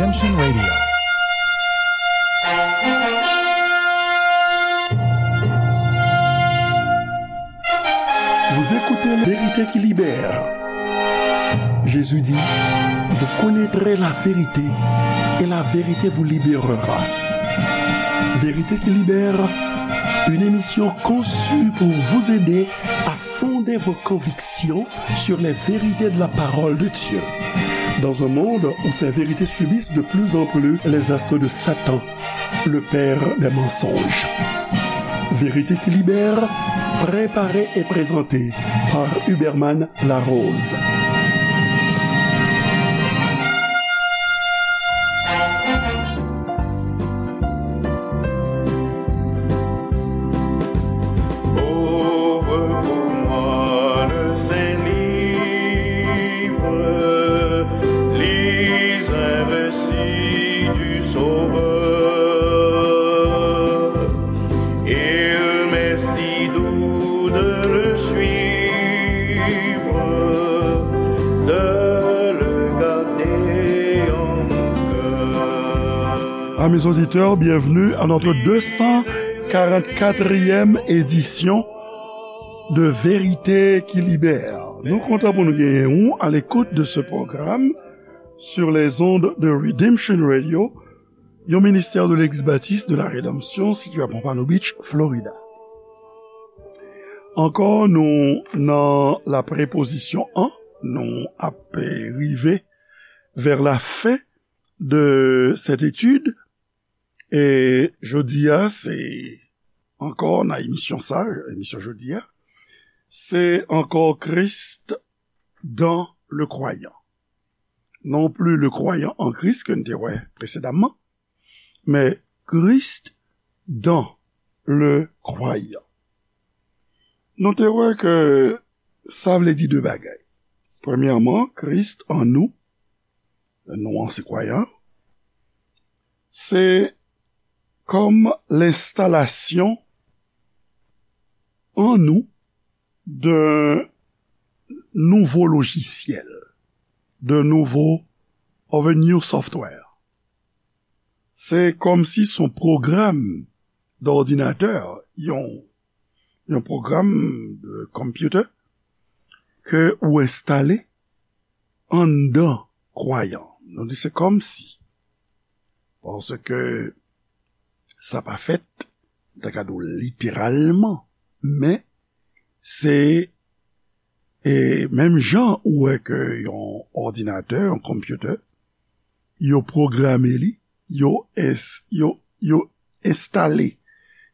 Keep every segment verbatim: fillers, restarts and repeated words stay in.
Redemption Radio. Vous écoutez la vérité qui libère. Jésus dit, vous connaîtrez la vérité et la vérité vous libérera. Vérité qui libère, une émission conçue pour vous aider à fonder vos convictions sur les vérités de la parole de Dieu. Dans un monde où ces vérités subissent de plus en plus les assauts de Satan, le père des mensonges. Vérité qui libère, préparée et présentée par Huberman Larose. Ouvre pour moi le Saint-Livre, lis un récit du Sauveur. Il m'est si doux de le suivre, de le garder en mon cœur. Amis auditeurs, bienvenue à notre deux cent quarante-quatrième édition de Vérité qui Libère. Nou kontan pou nou genyen ou à l'écoute de ce programme sur les ondes de Redemption Radio, yon ministè de Legliz Batis de la Redanmsyon sitiye a Pompano Beach, Florida. Ankò, nou nan la prepozisyon an, nou ap rive vers la fin de cette étude. E jodi a, se ankò nan emisyon sa, emisyon jodi a, se ankò Christ dans le croyant. Non plus le croyant en Christ ke n te wè presedaman, men Christ dans le croyant. Nou te wè ke sa vle di de bagay. Premyèman, Christ en nous, nou an se kwayan, se kòm lenstalasyon an nou de nouvo lojisyèl, de nouvo, of a new software. Se kòm si se yon pwogram d'òdinatè, yon, yon pwogram de computer ke ou enstale anndan kwayan. Nou di se kòm si. Paske sa pa fèt, m ta ka di w literalman, men se, e, menm jan ou wè ke yon òdinatè, yon computer, yo pwograme li, yo ins-, yo, yo enstale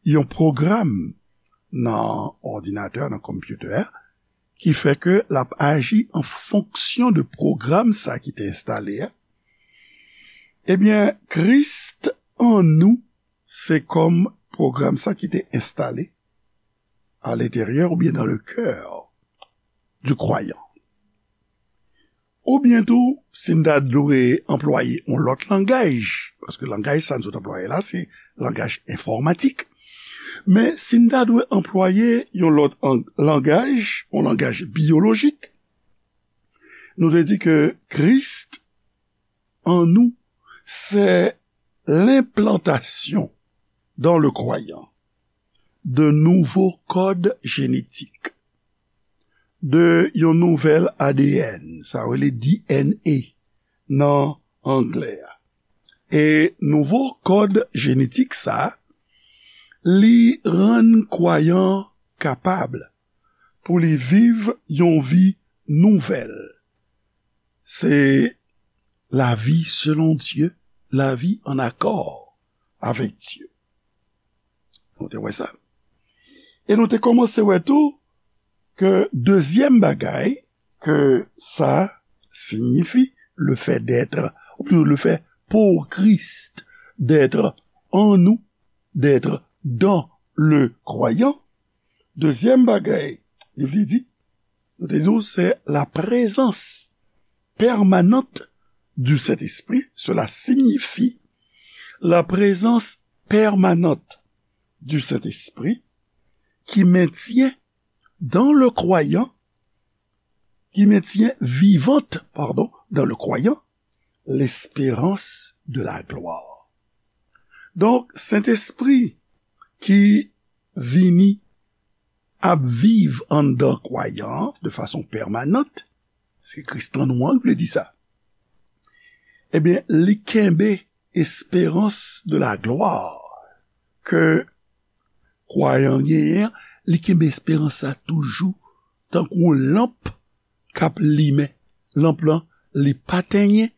yon pwogram nan òdinatè, nan computer a, ki fè ke l ap aji an fonksyon de pwogram sa ki te enstale a. Ebyen, Christ en nous, se kòm pwogram sa ki te enstale à l'intérieur ou bien dans le cœur du croyant. Oubyen tou, si n ta dwe anplwaye yon lòt langaj, paske langaj sa n sot anplwaye la, se langaj enfòmatik. Men si n ta dwe anplwaye yon lòt an-, langaj, yon langaj byolojik, nou te di ke Christ en nous, c'est l'implantation dans le croyant de nouveaux codes génétiques, de yon nouvèl A D N, sa rele D N A nan anglè a. E nouvo kòd jenetik sa, li rann kwayan kapab pou li viv yon vi nouvèl. Se lavi selon Dye, lavi an akò avèk Dye. Nou te wè sa. E nou te kòmanse wè tou ke dezyèm bagay ke sa siyifi, le fait d'être, ou plito le fait pour Christ d'être en nous, d'être dans le croyant. Dezyèm bagay, li vle di, nou te di w, se la présence permanente du Saint-Esprit. Cela signifie la présence permanente du Saint-Esprit qui maintient dans le croyant, qui maintient vivante, pardon, dans le croyant, l'espérance de la gloire. Donk, Sentespri ki vini ap viv anndan kwayan an de fason pèmanant, se Kris an nou an ki vle di sa. Ebyen, li kenbe espérance de la gloire ke kwayan genyen an, li kenbe esperans sa toujou tankou yon lanp k ap limen. Lanp lan, li pa tenyen,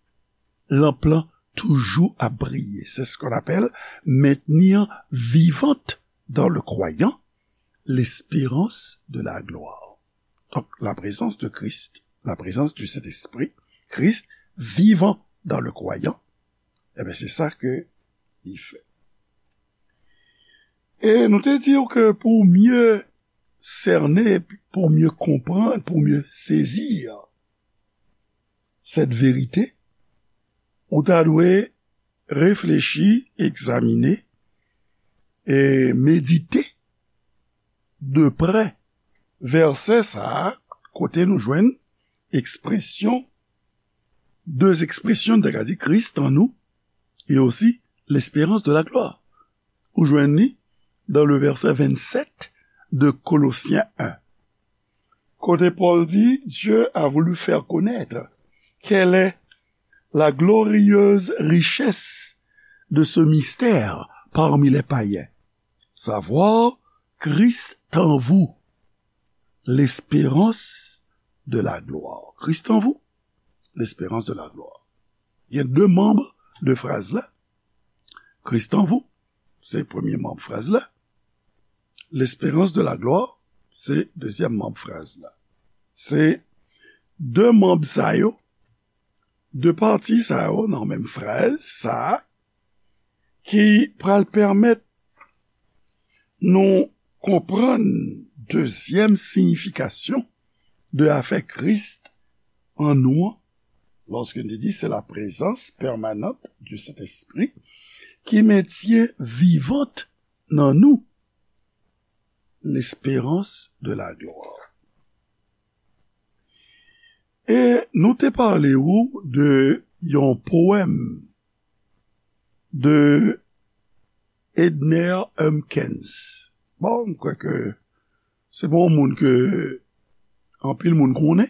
lanp lan toujou ap briye. C'est ce qu'on appelle maintenir vivante dans le croyant l'espérance de la gloire. Donc, la présence de Christ, la présence du Saint-Esprit, Christ vivant dans le croyant, eh bien, c'est ça que il fait. E nou te di w ke pou mye sène, pou mye konprann, pou mye sezi cette vérité, ou ta dwe reflechi, egzamine e medite de prè vèsè sa a, kote nou jwenn ekspresyon, de ekspresyon, n ta ka di, Christ en nous et aussi l'espérance de la gloire. Ou jwenn li dans le verset vingt-sept de Colossiens un. Kote Pòl di, Dieu a voulu faire connaître quelle est la glorieuse richesse de ce mystère parmi les païens, savoir Christ en vous, l'espérance de la gloire. Christ en vous, l'espérance de la gloire. Gen de manb de fraz la. Christ en vous, se premye manb fraz la. L'espérance de la gloire, se dezyèm manb fraz la. Se de manb sa yo, de pati sa yo nan menm fraz sa a, ki pral pèmèt nou konprann dezyèm siyifikasyon de afè Kris an nou an, lòske n te di se la prezans pèmanant du Sentespri ki mentyen vivant nan nou l'espérance de la gloire. E nou te pale ou de yon powèm de Edner Humpkins. Bon, m kwè ke se pa yon moun ke anpil moun konnen.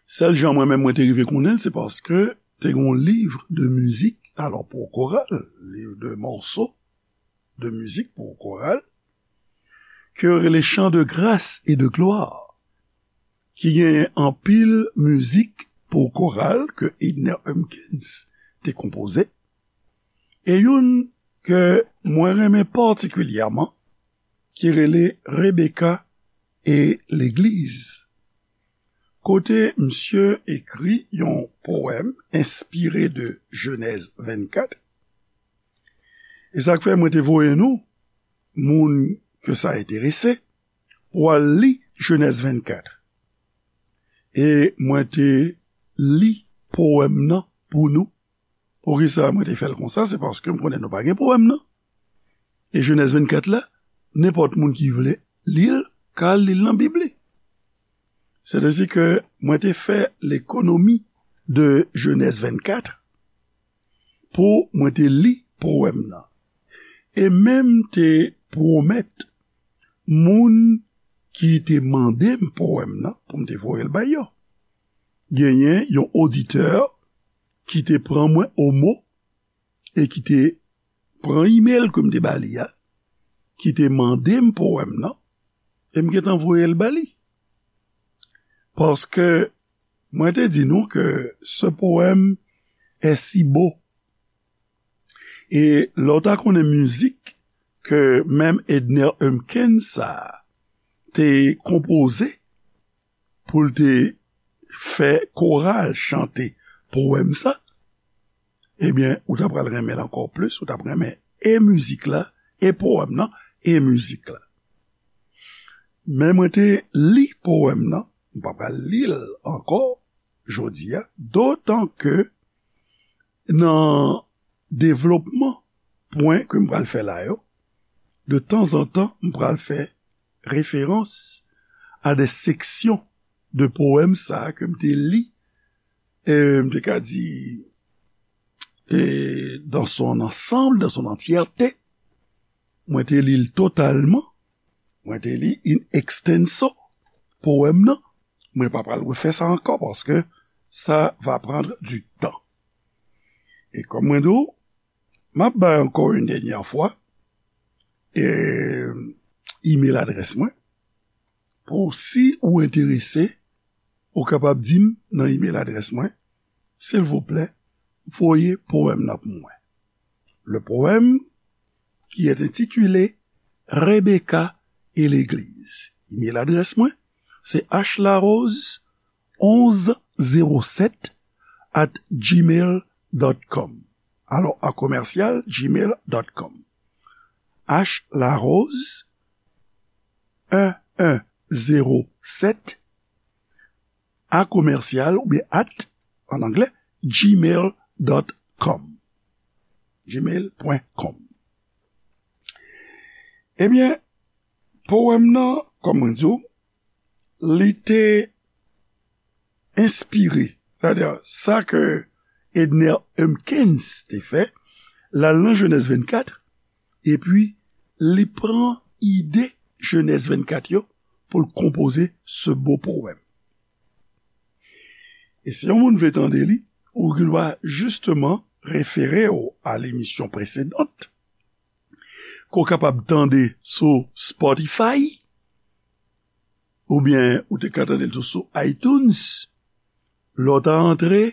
Sèl jan mwen menm mwen te rive konnen l, se paske te gen yon liv de mizik, alò pou koral, liv de mòso de mizik pou koral, ke yo rele Chants de grâce et de gloire, ki genyen anpil mizik pou koral ke Edner Humpkins te konpoze, e youn ke mwen renmen patikilyèman, ki rele Rebecca et l'église, kote misye ekri yon powèm enspire de Jenèz vennkat. E sa k fè mwen te voye nou, moun ke sa enterese, pou al li Jenèz vennkat. E mwen te li powèm nan pou nou. Poukisa mwen te fè l konsa? Se paske m konnen nou pa gen powèm nan. E Jenèz vennkat la, nenpòt moun ki vle li l, ka al li l nan Bib li. Sètadi ke mwen te fè lekonomi de Jenèz vennkat pou mwen te li powèm nan. E menm te pwomèt moun ki te mande m powèm nan pou m te voye l bay yo. Genyen yon oditè ki te pran mwen o mo e ki te pran imèl ke m te ba li a, ki te mande m powèm nan, e m gentan voye l ba li. Paske mwen te di nou ke ce poème est si beau. E lè w ta konnen mizik ke menm Edner Humpkins sa a te konpoze pou l te fè koral chante powèm sa, ebyen, ou ta pral renmen l ankò plis, ou t ap renmen e mizik la, e powèm nan, e mizik la. Men mwen te li powèm nan, m pa pral li l ankò jodi a, dotan ke nan devlopman pwen ke m pral fè la yo, de tanzantan, m pral fè referans a de seksyon de powèm sa a ke m te li e, m te ka di, e, dans son ensemble, dans son entièreté. Mwen te li l totalman. Mwen te li in extenso powèm nan. Mwen pa pral refè sa ankò paske ça va prendre du temps. E kòm mwen di w, m ap bay ankò yon dènyè fwa, e, email adrès mwen. Pou si ou enterese, ou kapab di m nan email adrès mwen, silvouplè, voye powèm nan pou mwen. Le poème qui est intitulé Rebecca et l'église. Email adrès mwen, se h larose onze zéro sept at gmail dot com. Alò, a commercial gmail dot com. H larose un un zéro sept a commercial oubyen at, an anglè, gmail dot com. Gmail point com. Ebyen, powèm nan, kòm mwen di w, li te enspire, sètadi sa ke Edner Humpkins te fè, l al nan Jenèz vennkat, epi li pran ide Jenèz vennkat yo pou l konpoze ce beau poème. E si yon moun vle tande li, ou gen dwa jisteman refere w a lemisyon presedant, ke w kapab tande sou Spotify, oubyen ou te ka tande l tou sou iTunes, lè w ta antre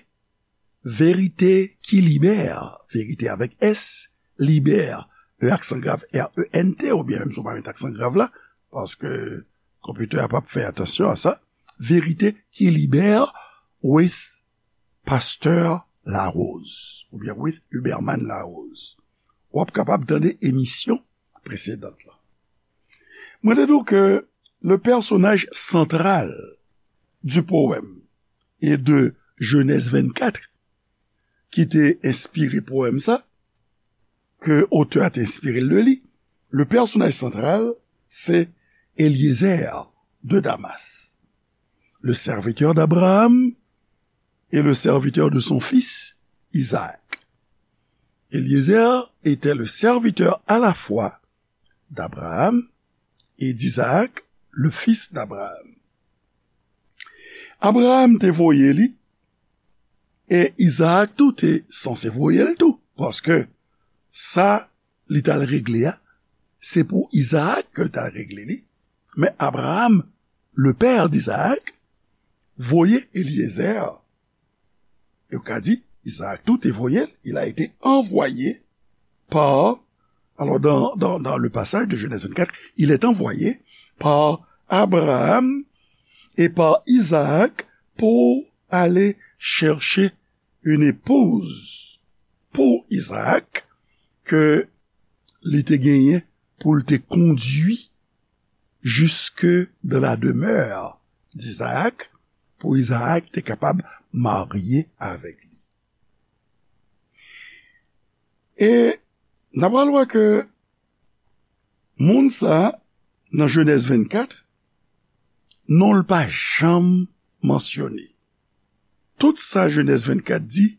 Verite ki libè, verite avèk S, libè, E aksan grav, R E N T, oubyen menm si w pa met aksan grav la, paske konpitè a p ap fè atansyon a sa. Verite ki libè with Pasteur Larose, oubyen with Huberman Larose. W ap kapab tande emisyon presedant la. Mwen te di w ke le personnage central du poème et de Genèse vingt-quatre, ki te enspire powèm sa, ke otè a te enspire l de li, le personnage central, c'est Eliezer de Damas, le serviteur d'Abraham et le serviteur de son fils Isaac. Eliezer était le serviteur à la fois d'Abraham et d'Isaac, le fils d'Abraham. Abraham te voye li, e Izaak tou te sanse voye l tou, paske sa li t al regle a, se pou Izaak ke l t al regle li. Men Abraham, le père d'Isaac, voye Eliezer. Yo ka di, Izaak tou te voye l, il a été envoyé par, alors dans, dans, dans le passage de Genèse vingt-quatre, il est envoyé par Abraham et par Isaac pour aller chercher une épouse pour Isaac que li te genyen pou l te kondui jusque dans la demeure d'Isaac, pou Izaak te kapab marye avèk li. E n ap pral wè ke moun sa, nan Jenèz vennkat, non l pa janm mansyone. Tout sa Jenèz vennkat di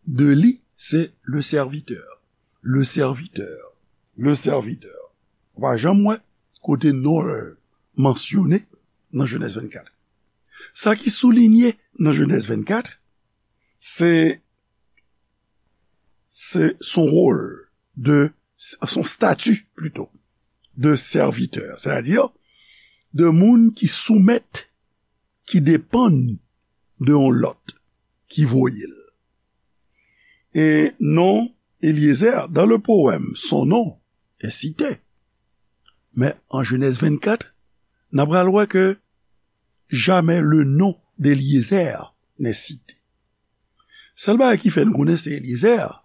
de li, se le serviteur, le serviteur, le serviteur. Ou pa janm wè kote non l mansyone nan Jenèz vennkat. Sa ki soulinye nan Jenèz vennkat, se, se son rôle de, son statut plutôt, de serviteur, c'est-à-dire de moun ki soumèt, ki depann de yon lòt ki voye l. E non Eliezer, dans le poème, son nom est cité. Mais en Genèse vingt-quatre, n ap pral wè ke jamais le nom d'Eliezer n'est cité. Sèl bagay ki fè nou konnen se Eliezer,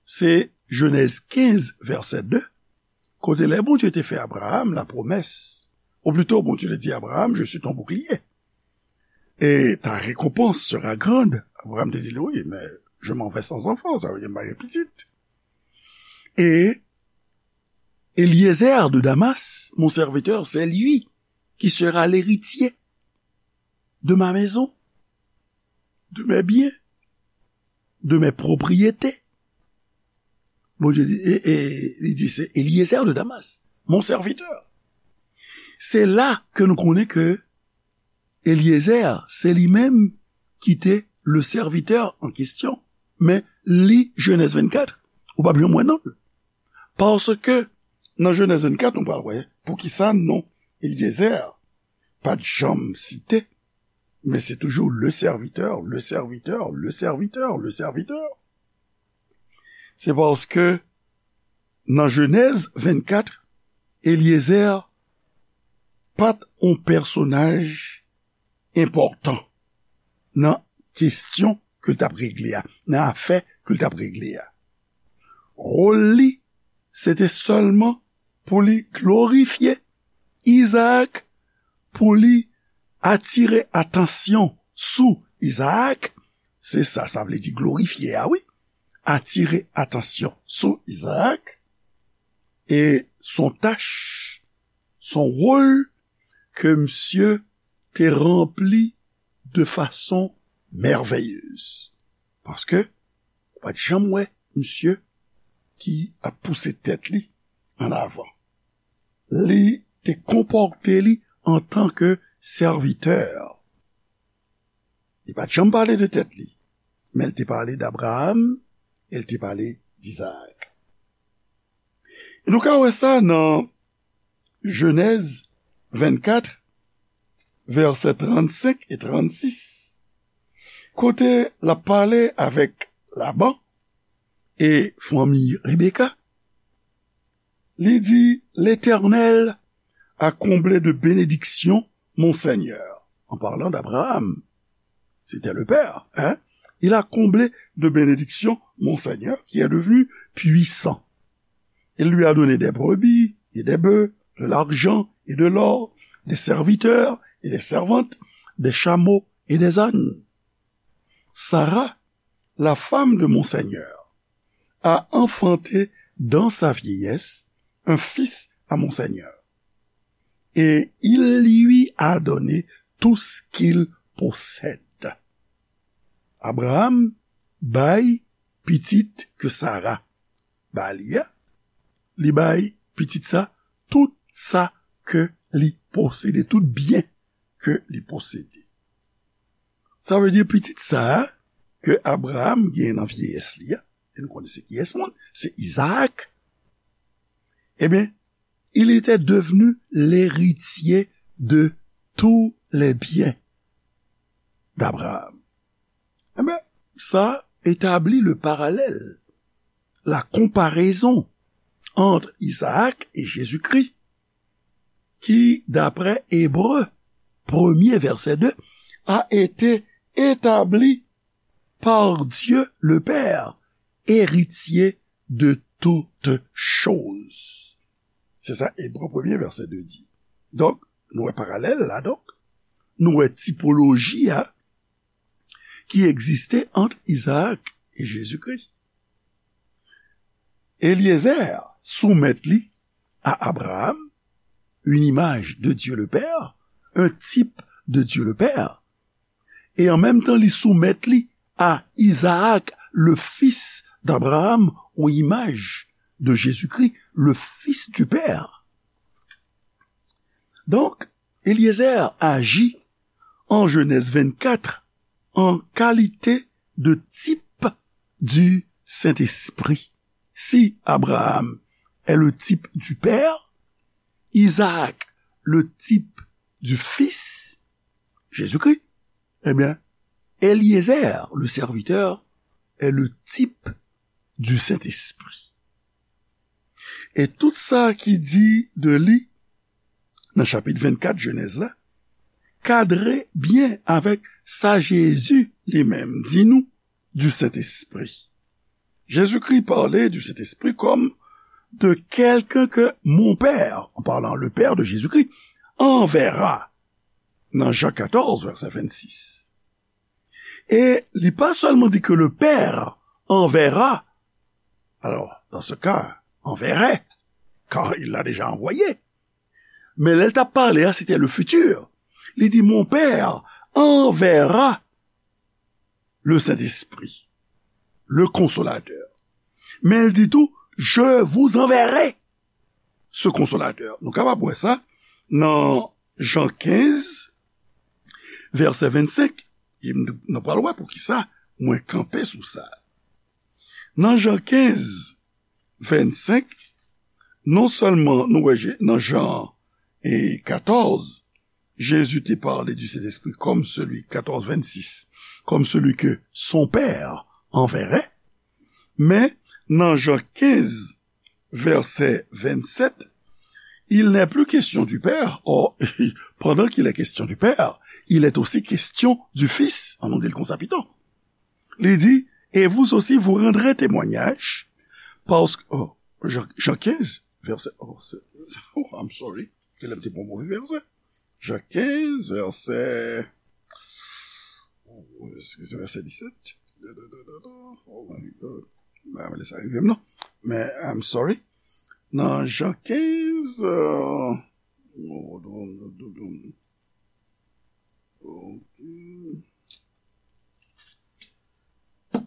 se Jenèz kenz, vèsè de, kote lè Bondye te fè Abraham la promesse, ou plutôt Bondye te di Abraham, je suis ton bouclier, et ta récompense sera grande. Abraham te di li, wi, men je m'en vais sans enfant, sa vle di m pa gen pitit. Et Eliezer de Damas, mon serviteur, c'est lui qui sera l'héritier de ma maison. de mes biens, de mes propriétés. Bondye di, e, e, li di, c'est Eliezer de Damas, mon serviteur. Se la ke nou konnen ke Eliezer, se li menm ki te le serviteur en question. Men li Jenèz vennkat, ou p ap janm wè non l. Paske nan Jenèz vennkat, nou pral wè poukisa non Eliezer pa t janm site, men se toujou le serviteur, le serviteur, le serviteur, le serviteur. Se paske nan Jenèz vennkat, Eliezer pa t on pèsonaj enpòtan nan kesyon ke l t ap regle a, nan afè ke l t ap regle a. Wòl li, se te sèlman pou li glorifye Izaak, pou li atire atansyon sou Izaak. Se sa, sa vle di glorifye a, wi. Atire atansyon sou Izaak. E son tach, son wòl ke misye te ranpli de fason mèvèyez. Paske ou pa t janm wè misye ki ap pouse tèt li an avan. Li te konpòte li antanke sèvitè. Li pa t janm pale de tèt li, men l te pale d Abraram e l te pale d Izaak. E nou ka wè sa nan Jenèz vennkat, vèsè trannsenk e trannsis, kote l ap pale avèk Laban e fanmi Rebeka. Li di, L'Éternel a comblé de bénédictions mon Seigneur, en parlant d'Abraham. C'était le père, hein? Il a comblé de bénédictions mon Seigneur, qui est devenu puissant. Il lui a donné des brebis et des bœufs, de l'argent et de l'or, des serviteurs et des servantes, des chameaux et des ânes. Sarah, la femme de mon Seigneur, a enfanté dans sa vieillesse un fils à mon Seigneur, et il lui a donné tout ce qu'il possède. Abraham bay pitit ke Sara ba li a, li bay pitit sa tout sa ke li posede, tout byen ke li posede. Sa vle di pitit sa a ke Abraham gen nan vyeyès li a, e nou konnen se kiyès moun, se Izaak, ebyen, il était devenu l'héritier de tous les biens d'Abraham. Ebyen, sa etabli le parallèle, la comparaison entre Isaac et Jésus-Christ, qui, d'après Hébreux premier, verset deux, a été établi par Dieu le Père, héritier de toutes choses. Se sa Ebre premye, vèsè de di. Donk, nou wè paralèl la, donk. Nou wè tipoloji a ki egziste ant Izaak e Jezikri. Eliezer soumèt li a Abraham, une image de Dieu le Père, un type de Dieu le Père, e an menm tan li soumèt li a Izaak, le fils d'Abraham, yon imaj de Jezikri, le fils du Père. Donk, Eliezer aji an Jenèz vennkat an kalite de type du Saint-Esprit. Si Abraham est le type du Père, Isaac le type du Fils, Jésus-Christ, ebyen, Eliezer, le serviteur, est le type du Saint-Esprit. E tout sa ki di de li nan chapit vennkat Jenèz la, kadre byen avèk sa Jezi li menm di nou du Saint-Esprit. Jésus-Christ parlait du Saint-Esprit comme de quelqu'un que mon Père, en parlant le Père de Jésus-Christ, enverra, nan Jan katòz, vèsè vennsis. E li pa sèlman di ke le Père enverra, alors, dans ce cas, enverrait, car il l'a déjà envoyé. Men lè l t ap pale a, se te le futur. Li di, mon Père enverra le Saint-Esprit, le Consolateur. Men l di tou, je vous enverrai ce Consolateur. Nou kapab wè sa nan Jan kenz, vèsè vennsenk. E m, nou pral wè poukisa mwen kanpe sou sa. Nan Jan kenz, vennsenk, non sèlman nou wè Je- nan Jan e katòz, Jésus te parle du Saint-Esprit comme celui, quatorze vingt-six, comme celui que son Père enverrait, men nan Jan kenz, vèsè vennsenk, il n'est plus question du Père. Or, pendant qu'il est question du Père, il est aussi question du Fils. An nou di l konsa pito. Li di, et vous aussi, vous rendrez témoignage, parce que, oh, Jan, Jan kenz, vèsè, oh, se- oh, I'm sorry, ke lè m te pran move vèsè. Jan kenz, vèsè, oh, eskize, vèsè disèt. Oh my God. Mwen pa vle sa rive m non. Men, I'm sorry. Nan Jan kenz, euh, oh, ok.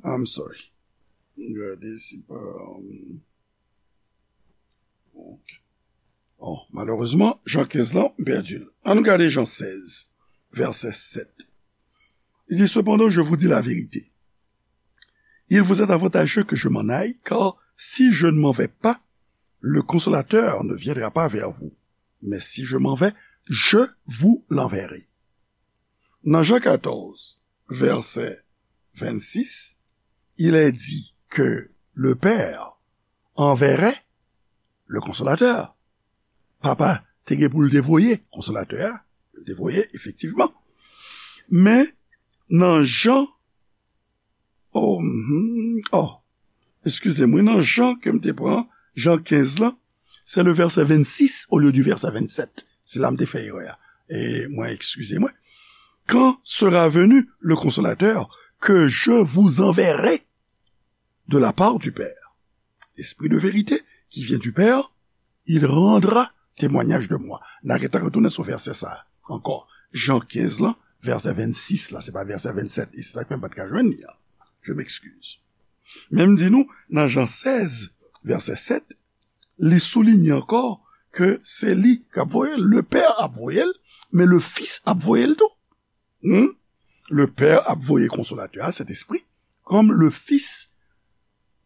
I'm sorry. Gade si pa, um, ok. Oh, malerezman, Jan kenz lan, m pèdi l. Ann gade Jan sèz, vèsè sèt. Li di, cependant, je vous dis la vérité. Il vous est avantageux que je m'en aille, car si je ne m'en vais pas, le Consolateur ne viendra pas vers vous. Mais si je m'en vais, je vous l'enverrai. Nan Jan katòz, vèsè vennsis, il est dit que le Père enverrait le Consolateur. Papa te gen pou l te voye Konsolatè a, li te voye, efektivman. Men, nan Jan, oh, mhm, oh, eskize mwen, nan Jan ke m te pran, Jan kenz lan, se le vèsè vennsis olye di vèsè vennsèt. Se la m te fè erè a. E mwen, eskize mwen. Quand sera venu le Consolateur que je vous enverrai de la part du Père, l'Esprit de vérité qui vient du Père, il rendra témoignage de moi. N a gentan retounen sou vèsè sa a ankò. Jan kenz lan, vèsè vennsis la, se pa vèsè vennsèt. E se sa k fè m pa t ka jwenn li an. Je m'excuse. Men m di nou, nan Jan sèz, vèsè sèt, li soulinye ankò ke se li k ap voye l. Le Père ap voye l, men le Fils ap voye l tou. Hmm? Le Père ap voye Konsolatè a, Sentespri, kòm le Fils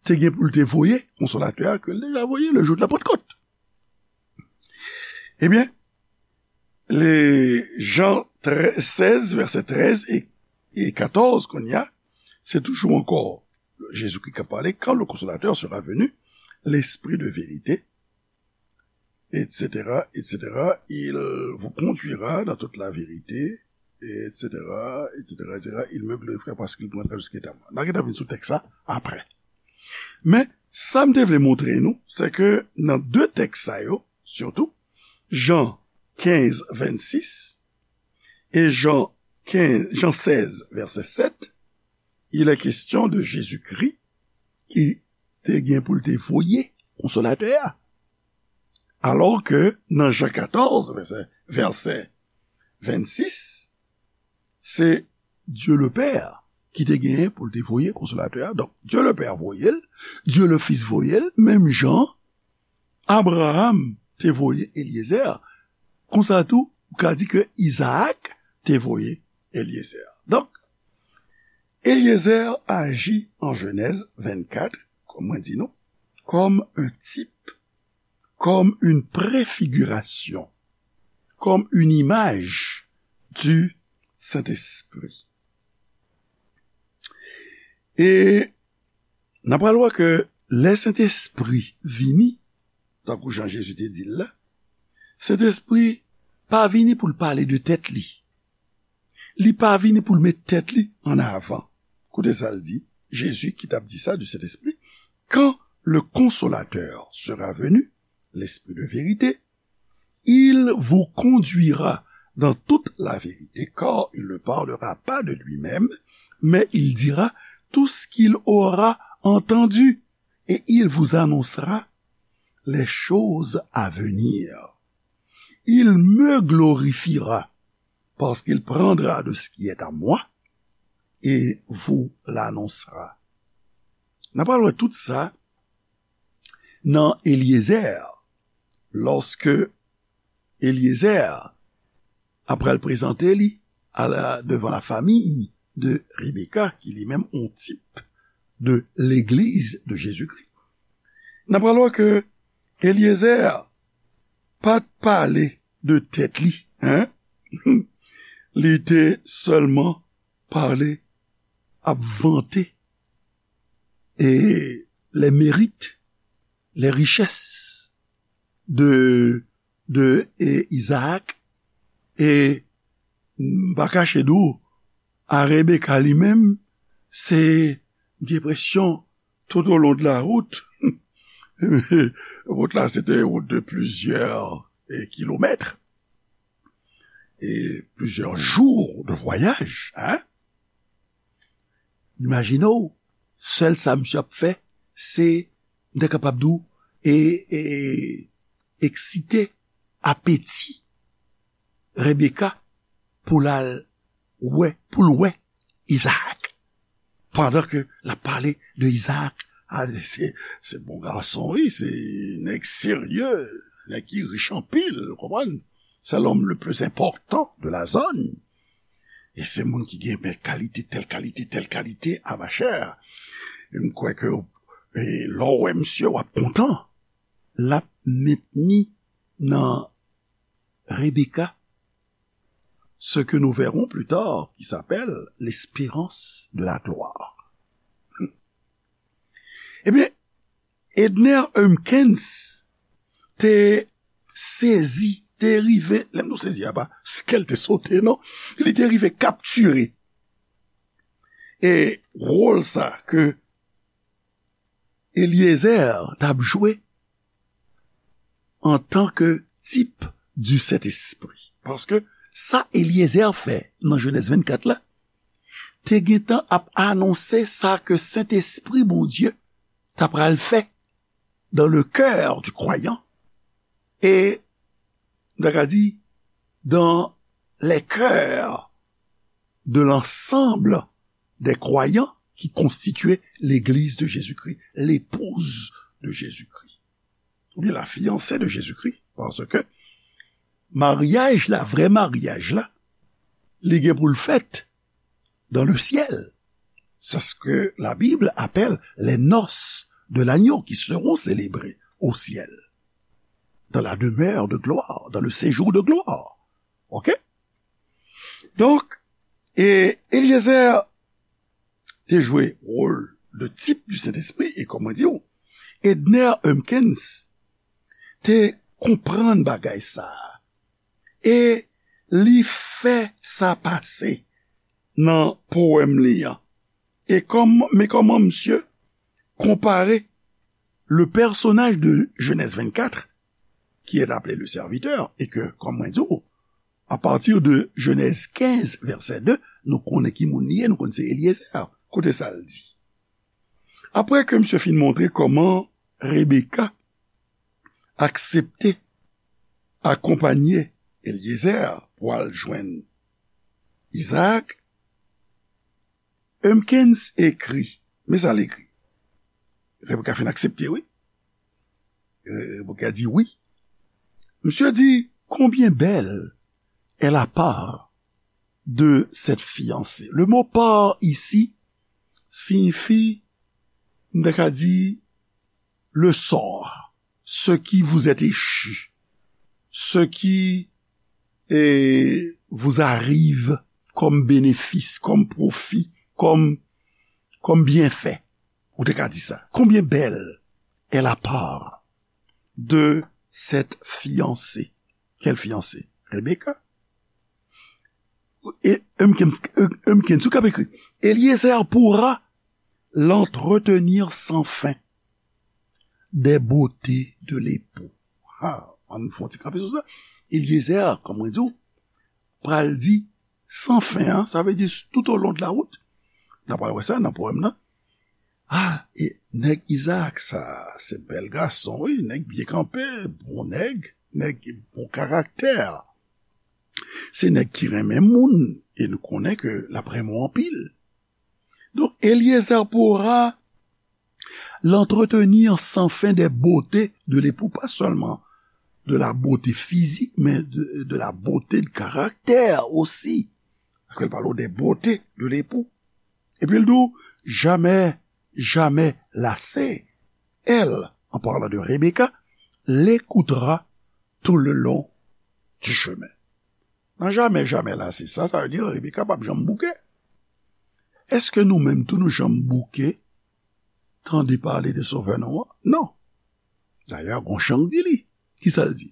te gen pou l te voye Konsolatè a, ke l deja voye le jou de la Pantkòt. Ebyen, le Jan trèz, sèz, vèsè trèz e, e katòz, kounye a, se toujou ankò Jezikri k ap pale, quand le Consolateur sera venu, l'Esprit de vérité, et cetera, et cetera, il vous conduira dans toute la vérité, et cetera, et cetera, et cetera. Il me glorifiera parce qu'il prendra tout ce qui est à moi. N a gentan vin sou tèks sa apre. Men, sa m te vle montre nou, se ke nan de tèks sa yo, sitou, Jan kenz, vennsis e Jan kenz, Jan sèz, vèsè sèt, il est question de Jésus-Christ ki te gen pou l te voye Konsolatè a. Alò ke nan Jan katòz, vèsè, vèsè vennsis, se Dieu le Père ki te genyen pou l te voye Konsolatè a. Donk, Dieu le Père voye l, Dieu le Fils voye l, menm jan Abraham te voye Eliezer. Konsa tou, ou ka di ke Izaak te voye Eliezer. Donk, Eliezer aji an Jenèz vennkat, kòm mwen di nou, comme un type, comme une préfiguration, comme une image du Saint-Esprit. E n ap pral wè ke lè Sentespri vini, tankou jan Jezi te di l la, Sentespri pa vini pou l pale de tèt li. Li pa vini pou l met tèt li an avan. Koute sa l di, Jezi ki t ap di sa du Saint-Esprit, quand le Consolateur sera venu, l'Esprit de vérité, il vous conduira dans toute la vérité, car il ne parlera pas de lui-même, mais il dira tout ce qu'il aura entendu, et il vous annoncera les choses à venir. Il me glorifiera, parce qu'il prendra de ce qui est à moi et vous l'annoncera. N a pral wè tout sa nan Eliezer, lòske Eliezer apral prezante li a la, devan la famiy de Rebecca, ki li menm yon tip de legliz de Jezikri. N apral wè ke Eliezer pa t pale de tèt li, en? Li te sèlman pale, ap vante e les mérites, les richesses de, de e, Isaac. E m pa kache di w, a Rebecca li menm, se, m gen enpresyon, tout au long de la route, wout la, se te wout de plizyè e, kilomèt, e plizyè jou de vwayaj, en? Imajine w, sèl sa misye ap fè, se, m ta kapab di w, e, e, eksite apeti Rebecca pou l al wè, pou l wè Isaac. Pandan ke l ap pale de Isaac, a, se, se bon gason, wi, se nèg serye, nèg ki rich anpil, ou konprann? C'est l'homme le plus important de la zone. E se moun ki gen bèl kalite, tèl kalite, tèl kalite, a machè. E m kwè ke, e, lè w wè misye, w ap kontan. L ap mentni nan Rebecca ce que nous verrons plus tard, qui s'appelle l'espérance de la gloire. Ebyen, Edner Humpkins te sezi, te rive, lè m di w sezi a pa, se kè l te sote, non, li te rive kaptire, e, wòl sa ke Eliezer t ap jwe antanke tip di Sentespri. Paske sa Eliezer fè nan Jenèz vennkat la, te gentan ap anonse sa ke Sentespri Bondye t ap pral fè dans le cœur du croyant et, m ta ka di, dans les cœurs de l'ensemble des croyants qui constituaient l'Église de Jésus-Christ, l'épouse de Jésus-Christ, oubyen la fiancée de Jésus-Christ, paske maryaj la, vrè maryaj la, li gen pou l fèt dans le ciel. C'est ce que la Bible appelle les noces de l'agneau qui seront célébrées au ciel, dans la demeure de gloire, dans le séjour de gloire. OK? Donk, e Eliezer te jwe wòl de tip du Sentespri, e kòman di w, Edner Humpkins te konprann bagay sa a, e li fè sa pase nan powèm li an. E kòm, men kòman misye konpare le personnage de Genèse vingt-quatre, qui est appelé le serviteur, et que, kòm mwen di w, à partir de Genèse quinze, verset deux, nou konnen ki moun li ye, nou konnen se Eliezer. Koute sa l di. Apre ke misye fin montre kòman Rebecca aksepte akonpanye Eliezer pou al jwenn Isaac, Humpkins ekri, men sa l ekri. Rebecca fin aksepte, wi. Rebecca di wi. Misye di, combien belle est la part de cette fiancée. Le mot part ici signifie, m ta ka di, le sort, ce qui vous est échu, ce qui, eh, vous arrive comme bénéfice, comme profit, comme, comme bienfait. Ou te ka di sa. Combien belle est la part de cette fiancée. Quelle fiancée? Rebecca. E Humpkins, Humpkins, ou k ap ekri. Eliezer pourra l'entretenir sans fin des beautés de l'époux. Ah, ann fè yon ti kanpe sou sa. Eliezer, kòm mwen di w, pral di sans fin, an, sa vle di tout au long de la route. N a pral wè sa nan powèm nan. Ah, e nèg Isaac sa, se bèl gason, wi, nèg byen kanpe, bon nèg, nèg bon karaktè. Se nèg ki renmen moun, e nou konnen ke l ap renmen w anpil. Eliezer pourra l'entretenir sans fin des beautés de l'époux, pas seulement de la beauté physique, mais de, de la beauté de caractère aussi. Paske l pale de beauté de l'époux. Epi l di w, jamais, jamais lassée, elle, en parlant de Rebecca, l'écoutera tout le long du chemin. Nan jamè, jamè lase sa, sa vle di Rebeka p ap janm bouke. Èske nou menm tou nou janm bouke tande pale de Sovè nou an? Non. Dayè, gon chan k di li. Kisa l di?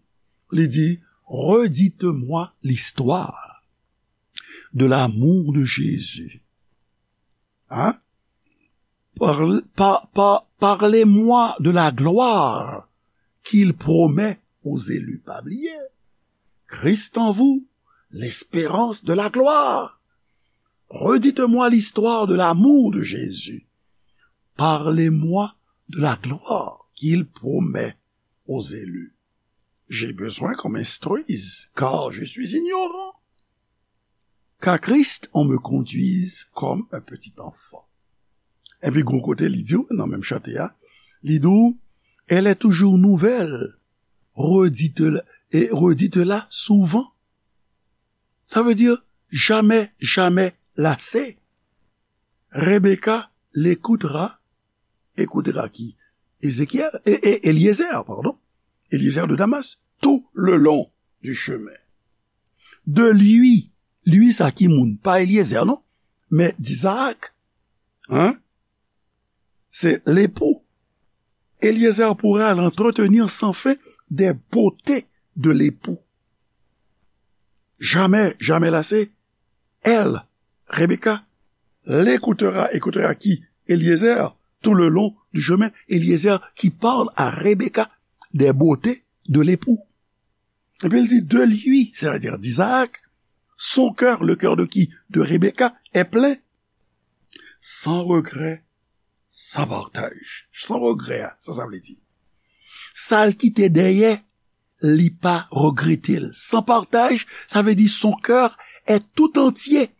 Li di, redites-moi l'histoire de l'amour de Jésus. Hein? Parle- pa- pa- parlez-moi de la gloire qu'il promet aux élus. Pa bliye, Christ en vous, l'espérance de la gloire. Redites-moi l'histoire de l'amour de Jésus. Parlez-moi de la gloire qu'il promet aux élus. J'ai besoin qu'on m'instruise, car je suis ignorant. Qu'à Christ on me conduise comme un petit enfant. Epi gon kote li di w, nan menm chante a, li di w, elle est toujours nouvelle, redite-la, et redite-la souvent. Ça veut dire jamais, jamais lassé. Rebecca l'écoutera, écoutera qui? Ézéchiel, et, et Eliezer, pardon. Eliezer de Damas, tout le long du chemin. De lui, lui sa ki moun, pa Eliezer non, men d'Isaac, hein? C'est l'époux. Eliezer pourra l'entretenir sans fin des beautés de l'époux. Jamais, jamais lassé, elle, Rebecca, l'écoutera, écoutera qui? Eliezer, tout le long du chemin, Eliezer qui parle à Rebecca des beautés de l'époux. Epi l di, de lui, c'est-à-dire d'Isaac, son cœur, le cœur de qui? De Rebecca, est plein, sans regret, sans partage. Sans regret, sa, sa vle di. Sa l kite dèyè, li pa regrete l. Sans partage, ça veut dire son cœur est tout entier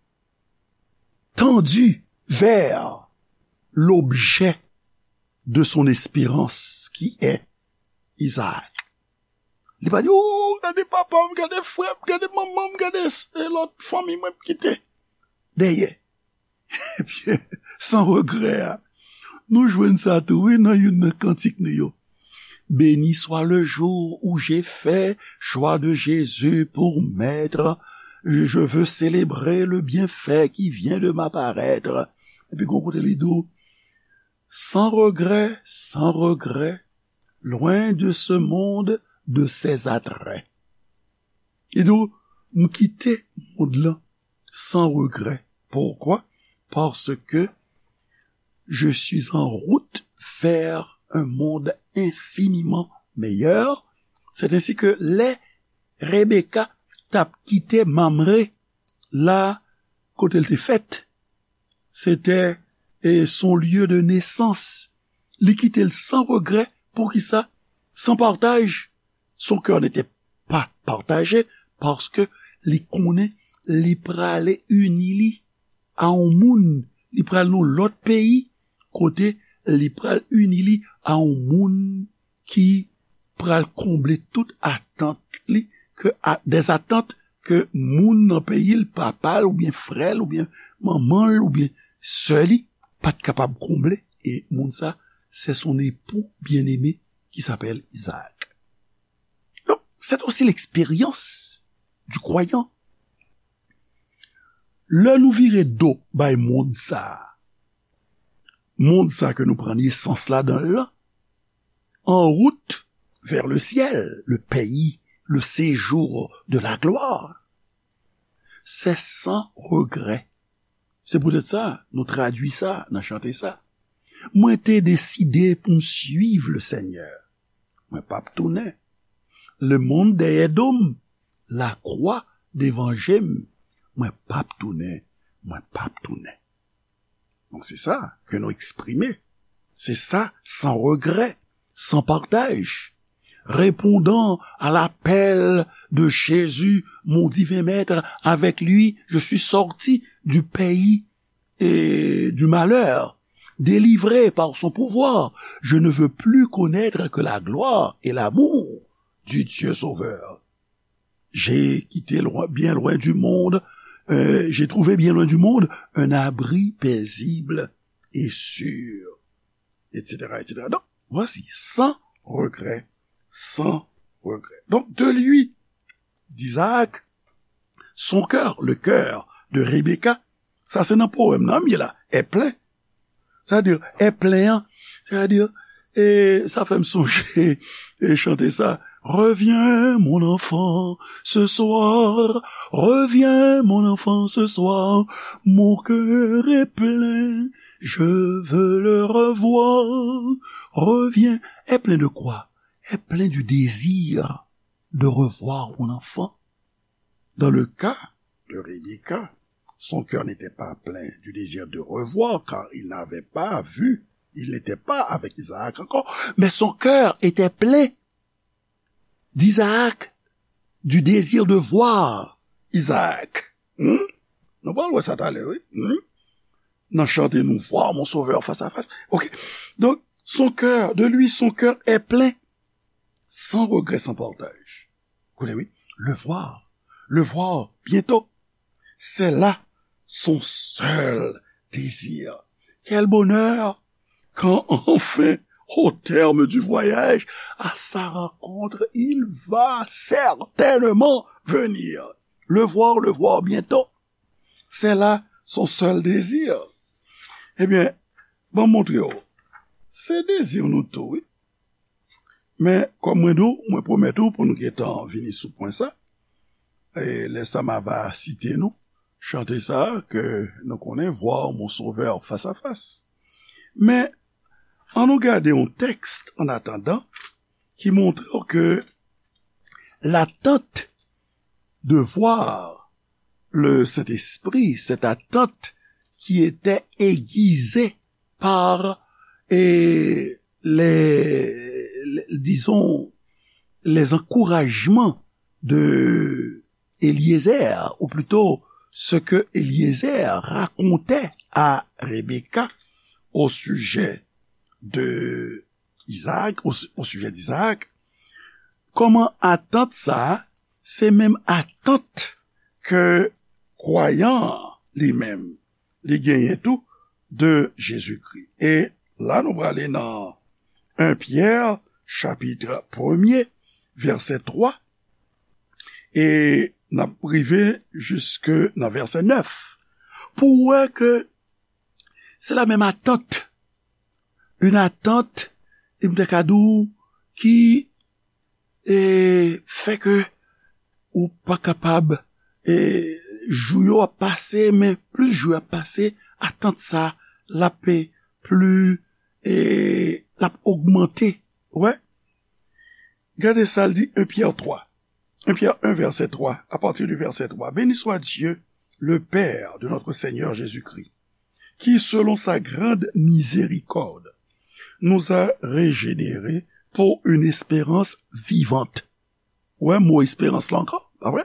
tendu vers l'objet de son espérance, qui est Isaac. Li pa di, oh, gade papa m, gade frè m, gade manman m, gade s- e lòt fanmi mwen m kite dèyè. Ebyen, sans regret a. Nou jwenn sa tou, wi, nan youn nan kantik nou yo. Béni soit le jour où j'ai fait choix de Jésus pour maître. Je veux célébrer le bienfait qui vient de m'apparaître. Epi gon kote li di w, sans regret, sans regret, loin de ce monde, de ses attraits. Li di w, m kite mond lan sans regret. Pourquoi? Parce que je suis en route vers un monde infiniment meilleur. C'est ainsi que lè Rebecca t ap kite Mamre la kote l te fèt, se te e, son lieu de naissance. Li kite l sans regret. Poukisa? Sans partage. Son cœur n'était pas partagé, paske li konnen li prale ini li a yon moun, li pral nan lòt peyi, kote li pral ini li a yon moun ki pral konble tout atant li, ke a- des attentes ke moun nan peyi l, papa l oubyen frè l oubyen manman l oubyen sè li pa t kapab konble. E moun sa, c'est son époux bien-aimé qui s'appelle Isaac. Donc, c'est aussi l'expérience du croyant. Lè nou vire do bay mond sa, mond sa ke nou pran nesans ladan l lan, en route vers le ciel, le pays, le séjour de la gloire, c'est sans regret. Se poutèt sa, nou tradui sa nan chante sa. Mwen te deside pou m suiv le Senyè. Mwen p ap tounen. Lemonn dèyè do m, lakwa devan je m. Mwen p ap tounen, mwen p ap tounen. Donk, se sa ke nou eksprime. Se sa, sans regret, sans partage. Répondant à l'appel de Jésus, mon divin maître, avec lui, je suis sorti du pays et du malheur, délivré par son pouvoir. Je ne veux plus connaître que la gloire et l'amour du Dieu Sauveur. J'ai quitté loin, bien loin du monde, euh, j'ai trouvé bien loin du monde un abri paisible et sûr, et cetera, et cetera. Donc, voici, sans regret, sans regret. Donc, de lui, d'Isaac, son cœur, le cœur de Rebecca, sa se nan powèm nan m ye la, est plein. Sa di, est plein, an. Sa di, e sa fè m sonje e chante sa. Reviens, mon enfant, ce soir. Reviens, mon enfant, ce soir. Mon cœur est plein, je veux le revoir. Reviens. Est plein de quoi? Est plein du désir de revoir mon enfant. Dans le cas de Rebecca, son cœur n'était pas plein du désir de revoir, car il n'avait pas vu, il n'était pas avec Isaac encore, mais son cœur était plein d'Isaac, du désir de voir Isaac. Hmm? Nou pral wè sa talè, wi. Hmm? Nan chante nou, voir mon sauveur face à face. Ok. Donc, son cœur, de lui, son cœur est plein, sans regret, sans partage. Koute, wi. Le voir, le voir bientôt. C'est là son seul désir. Quel bonheur quand enfin, au terme du voyage, à sa rencontre, il va certainement venir. Le voir, le voir bientôt. C'est là son seul désir. Ebyen, ban m montre w. Se dezi nou tou, wi. Men, kòm mwen di w, mwen pwomèt ou pou nou gentan vini sou pwen sa. E lè sa m a va site nou, chante sa ke nou konnen, Voir mon Sauveur face à face. Men, ann nou gade yon tèks, en attendant, ki montre w ke l'attente de voir le Saint-Esprit, cette attente qui était aiguisée par, et, les, les, disons, les encouragements de Eliezer, ou plutôt ce que Eliezer racontait à Rebecca au sujet de Isaac, au, au sujet d'Isaac, kòman atant sa a, se menm atant ke kwayan an li menm, li genyen tou de Jezikri. E la nou prale nan en Pyè, chapit premye, vèsè twa, e n ap rive jiske nan vèsè nèf. Pou w wè ke se la menm atant. Une attente, e m te ka di w, ki, e, fè ke ou pa kapab, e, jou yo ap pase, men plis jou yo ap pase, atant sa, l ap, e, pli, e, l ap ogmante. Ou wè? Gade sa l di, en Pyè twa. En Pyè en, vèsè twa, à partir du verset trois. Béni soit Dieu, le Père de notre Seigneur Jésus-Christ, qui, selon sa grande miséricorde, nous a régénérés pour une espérance vivante. Ou wè mo esperans la ankò, pa vre?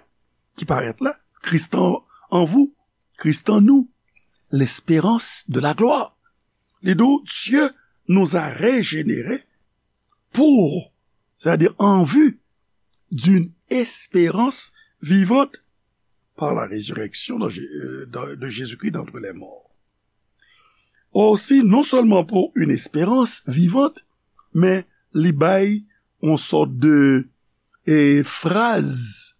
Ki parèt la, Christ en, en vous, Christ en nous, l'espérance de la gloire. Li di w, Dieu nous a régénérés pour, c'est-à-dire en vue d'une espérance vivante par la résurrection de, Jé- euh, de- de Jésus-Christ d'entre les morts. Aussi, non seulement pour une espérance vivante, men li bay yon sòt de, e, fraz,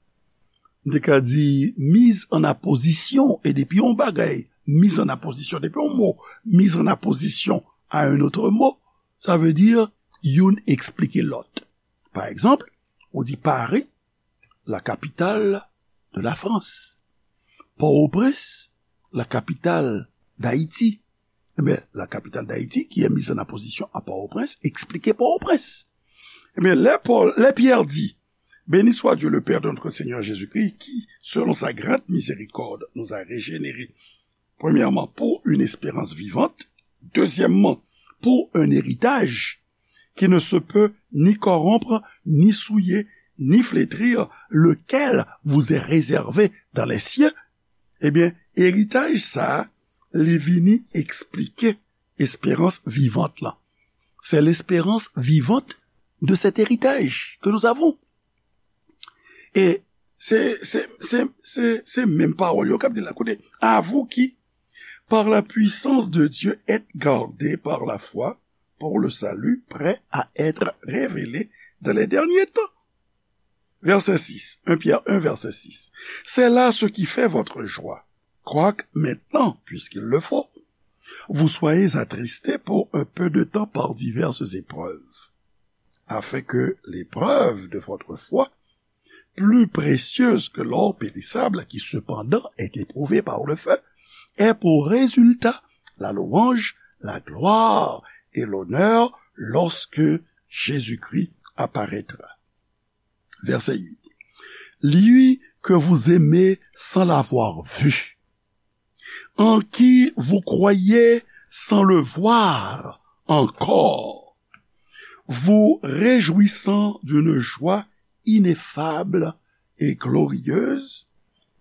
m te ka di, mise en apposition, e depi yon bagay, mise en apposition, depi yon mo, mise en apposition à un autre mot, sa vle di youn eksplike lòt. Pa egzanp, ou di Paris, la capitale de la France. Port-au-Prince, la capitale d'Haïti. Ebyen, la capitale d'Haïti, qui est mise en apposition à Port-au-Prince, eksplike Port-au-Prince. Ebyen, lè Pòl, lè Pyè di, Béni soit Dieu, le Père de notre Seigneur Jésus-Christ, qui, selon sa grande miséricorde, nous a régénérés, premièrement, pour une espérance vivante, deuxièmement, pour un héritage qui ne se peut ni corrompre, ni souiller, ni flétrir, lequel vous est réservé dans les cieux. Ebyen, eritaj sa a, li vini eksplike espérance vivante lan. C'est l'espérance vivante de cet héritage que nous avons. E se, se, se, se, se menm pawòl yo k ap di la. Koute, à vous qui, par la puissance de Dieu, êtes gardés par la foi pour le salut prêt à être révélé dans les derniers temps. Verset six, un Pierre un, verset six. C'est là ce qui fait votre joie. Quoique maintenant, puisqu'il le faut, vous soyez attristés pour un peu de temps par diverses épreuves, afin que l'épreuve de votre foi, plus précieuse que l'or périssable, qui cependant est éprouvé par le feu, ait pour résultat la louange, la gloire et l'honneur lorsque Jésus-Christ apparaîtra. Verset huit. Lui que vous aimez sans l'avoir vu, en qui vous croyez sans le voir encore, vous réjouissant d'une joie ineffable et glorieuse,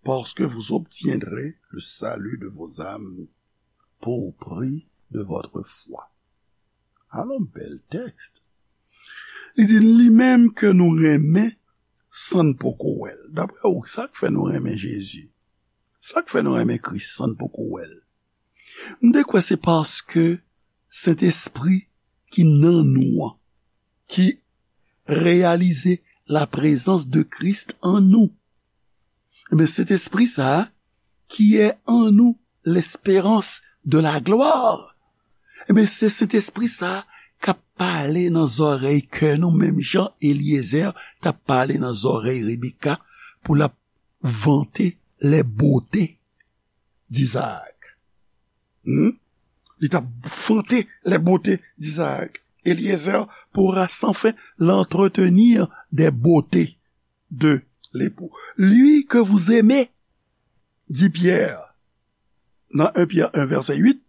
parce que vous obtiendrez le salut de vos âmes pour prix de votre foi. Alon bèl tèks. Li di, li menm ke nou renmen san n poko wè l. Daprè ou, sa k fè nou renmen Jezi? Sa k fè nou renmen Kris san n poko wè l? M te kwè se paske Sentespri ki nan nou an, ki reyalize la prezans de Kris an nou. Ebyen, Sentespri sa a, qui est en nous l'espérance de la gloire. Ebyen, se Sentespri sa a k ap pale nan zòrèy kè nou, menm jan Eliezer t ap pale nan zòrèy Rebeka pou l ap vante les beautés d'Isaac. Hmm? Li t ap vante les beautés d'Isaac. Eliezer pourra sans fin l'entretenir des beautés de l'époux. Lui que vous aimez, dit Pierre, dans un Pierre un, verset huit,